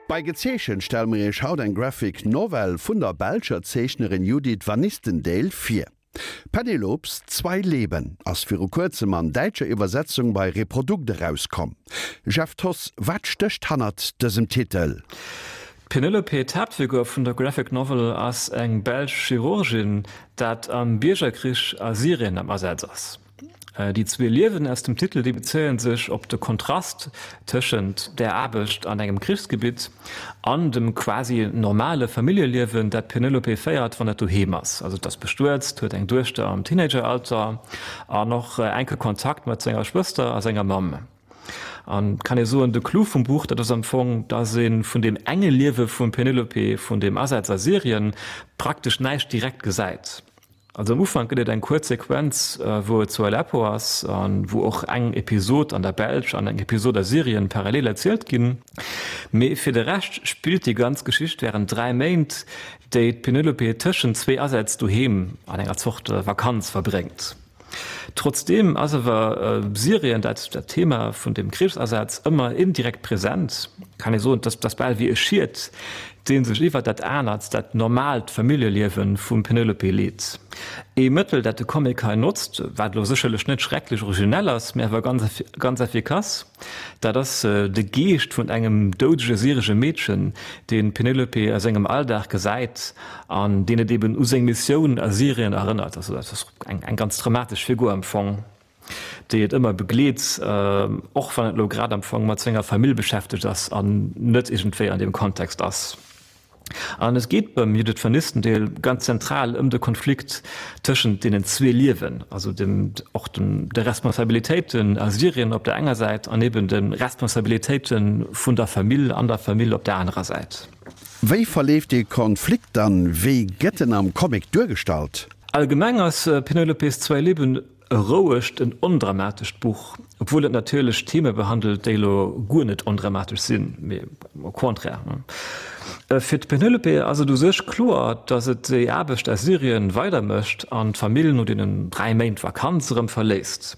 Bei Gezeechent stelle mer iech haut eng Graphic Novel vun der belscher Zeechnerin Judith Vanistendael vir. Penelopes Zwei Leben ass viru kuerzem an däitscher Iwwersetzung bei Reprodukt erauskomm. Jeff Thoss, wat stécht hannert dësem Titel? D'Penelope, d'Haaptfigur vun der Graphic Novel, ass eng belsch Chirurgin, dat am Biergerkrich a Syrien am Asaz ass. Déi zwee Liewen aus dem Titel, déi bezéie sech op de Kontrast tëschent der Aarbecht an engem Krichsgebitt an dem quasi normale Familljeliewen, dat d'Penelope féiert, wann et doheem ass. Also et ass bestuet, huet eng Duechter am Teenageralter an och enke Kontakt mat senger Schwëster a senger Mamm. An kann ee soen, de Clou vum Buch, dat ass am Fong, dass ee vun deem enge Liewe vum Penelope, vun deem Asaz a Syrien, praktesch näischt direkt gesäit. Also am Ufank gëtt et eng kuerz Sequenz, wou et zu Aleppo ass a wou och eng Episod an der Belsch an eng Episod a Syrien parallel erzielt ginn. Mee fir de Rescht spillt déi ganz Geschicht wärend 3 Méint, déi d'Penelope tëschent zwee Asätz doheem an enger Zort Vakanz verbréngt. Trotzdeem ass awer Syrien, dat dat Thema vun dem Krichsasaz, ëmmer indirekt present. Kann ee soen, dass dass bal wéi e Schiet, dee sech iwwer dat anert, dat normaalt Familljeliewe vum Penelope leet. Ee Mëttel, dat de Comic hei notzt, wat elo sécherlech net schrecklech originell ass, mä awer ganz ganz effikass, dat ass de Geescht vun engem doudege syresche Meedchen, deen d'Penelope a sengem Alldag gesäit an deen et eben u seng Missioun a Syrien erënnert. Also dat ass eng eng ganz dramatesch Figur am Fong, déi et ëmmer begleet, och wann et elo grad am Fong mat senger Famill beschäftegt ass an net iergendwéi an deem Kontext ass. An et geet beim Judith Vernistendeel ganz zentral ëm de Konflikt tëschent deenen zwee Liewen, also dem och dem de Responsabilitéiten a Syrien op der enger Säit an eben de Responsabilitéite vun der Famill an der Famill op der anerer Säit. Wéi verleeft dee Konflikt dann? Wéi gëtt en am Comic duergestallt? Allgemeng ass Penelopes Zwei Leben e rouegt, en ondramatescht Buch, obwuel et natierlech Theme behandelt, déi elo guer net ondramatesch sinn, mee au contraire. Fir d'Penelope ass et u sech kloer, datt et déi Aarbecht a Syrien weidermécht an d'Famill no deenen 3 Méint Vakanz erëm verléisst.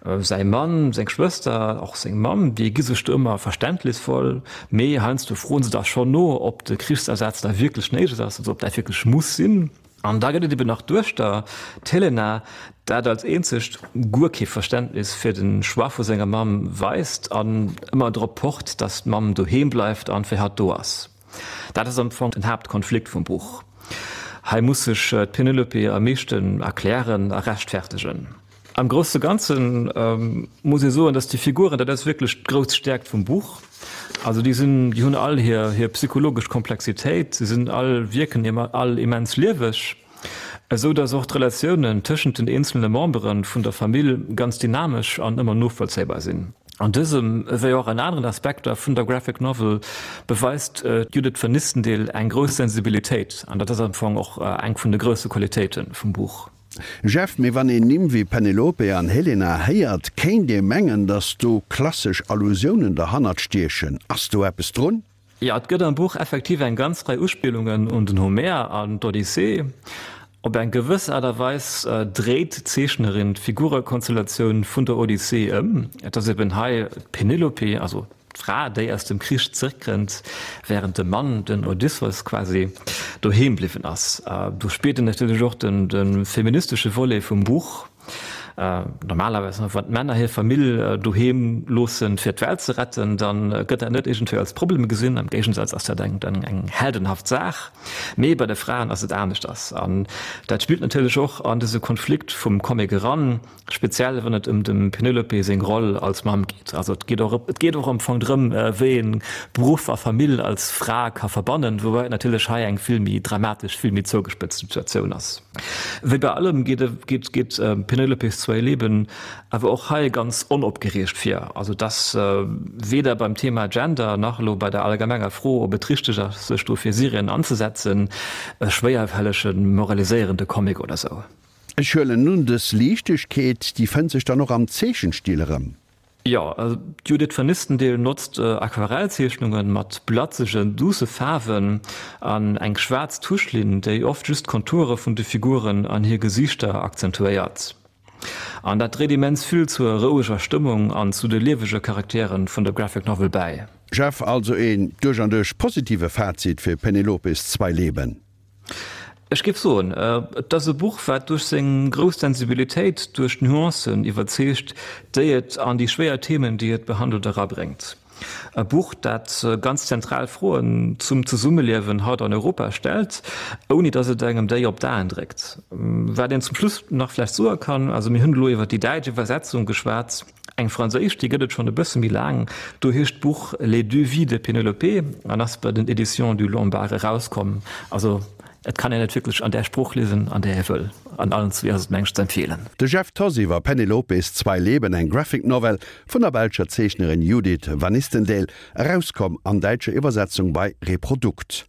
Säi Mann, seng Schwëster, och seng Mamm, déi gi sech do ëmmer verständnisvoll, mee heiansdo froen se da schonn no, ob de Krichsasaz da wierklech néideg ass, also ob dat wierklech muss sinn. An da gëtt et eben nach d'Duechter, d'Helena, dat als eenzegt guer kee Verständnis fir de Choix vu senger Mamm weist an ëmmer drop pocht, datt d'Mamm doheem bleift an fir hatt do ass. Dat ass am Fong den Haaptkonflikt vum Buch. Hei muss sech d'Penelope am meeschten erklären a rechtfertegen. Am grousse Ganze muss ee soen, datt déi Figuren, dat ass wierklech d'grouss Stäerkt vum Buch, also déi sinn, déi hunn all hir hir psychologesch Komplexitéit, se sinn all, wierken all immens lieweg, esou datt och d'Relatiounen tëschent den eenzelne Membere vun der Famill ganz dynamesch an ëmmer novollzéibar sinn. An dësem, ewéi och an aneren Aspekter vun der Graphic Novel, beweist d'Judith Vernistendeel eng grouss Sensibilitéit, an dat ass am Fong och eng vun de grousse Qualitéite vum Buch. Jeff, mee wann een Nimm wéi Penelope an Helena héiert, kéint ee mengen, datt do klassesch Allusiounen derhannert stiechen. Ass do eppes drun? Jo, et gëtt am Buch effektiv eng ganz Rei Uspillungen un den Homer an d'Odyssee. Op eng gewëss Aart a Weis dréit d'Zeechnerin d'Figurekonstellatioun vun der Odyssee ëm. Et ass eben hei d'Penelope, also D'Fra, déi aus dem Krich zréckkënnt, wärend de Mann, den Odysseus quasi, doheem bliwwen ass. Do spillt en natierlech och de feministesche Volet vum Buch. Normalerweis, wann d'Männer hir Famill doheem loossen, fir d'Welt ze retten, da gëtt dat net iergendwéi als Problem gesinn. Am Géigensaz ass dat eng heldenhaft Saach. Mee bei de Fraen ass et aneschters. An dat spillt natierlech och an dëse Konflikt vum Comic eran. Speziell wann et ëm dem Penelope seng Roll als Mamm geet. Also et geet och et geet och am Fong drëm, wéi een Beruff a Famill als Fra ka verbannen, woubäi et natierlech hei eng vill méi dramatesch, vill méi zougespëtzt Situatioun ass. Wéi bei allem geet geet geet Penelopes Zwei Leben awer och hei ganz onopgereegt vir. Also et ass weder beim Thema Gender nach elo bei der allgemenger Fro, ob et richteg ass, sech do fir Syrien anzesetzen, e schwéierfällege moraliséierende Comic oder sou. Ech huelen un, dës Liichtegkeet, déi fënnt sech dann och am Zeechenstil erëm? Jo, d'Judith Vernistendeel notzt Aquarellzeechnunge mat blatzegen, duusse Faarwen an eng schwaarz Tuschlinn, déi oft just d'Konture vun de Figuren an hir Gesiichter akzentuéiert. An dat dréit immens vill zur roueger Stëmmung an zu de liewege Charakteren vun der Graphic Novel bäi. Jeff, Also een duerch an duerch positive Fazit fir Penelopes Zwei Leben? Ech géif soen, et ass e Buch, wat duerch seng grouss Sensibilitéit, duerch d'Nuancen iwwerzeegt, déi et an déi schwéier Themen, déi et behandelt, erabréngt. E Buch, dat ganz zentral Froen zum Zesummeliewen haut an Europa stellt, ouni datt et engem déi op d'Aen dréckt. Wat een zum Schluss nach vläicht soe kann, also mir hunn elo iwwer déi däitsch Iwwersetzung geschwat, eng franséisch, déi gëtt et schonn e bësse méi laang, do heescht d'Buch Les deux vies de Pénélope an ass bei den Éditions du Lombard erauskomm. Also Et kann een et wierklech an där Sprooch liesen, an där ee wëll. An allen zwee ass et mengt ze empfeelen. De Jeff Thoss iwwer Penelopes Zwei Leben, eng Graphic Novel vun der belscher Zeechnerin Judith Vanistendael, erauskomm an däitscher Iwwersetzung bei Reprodukt.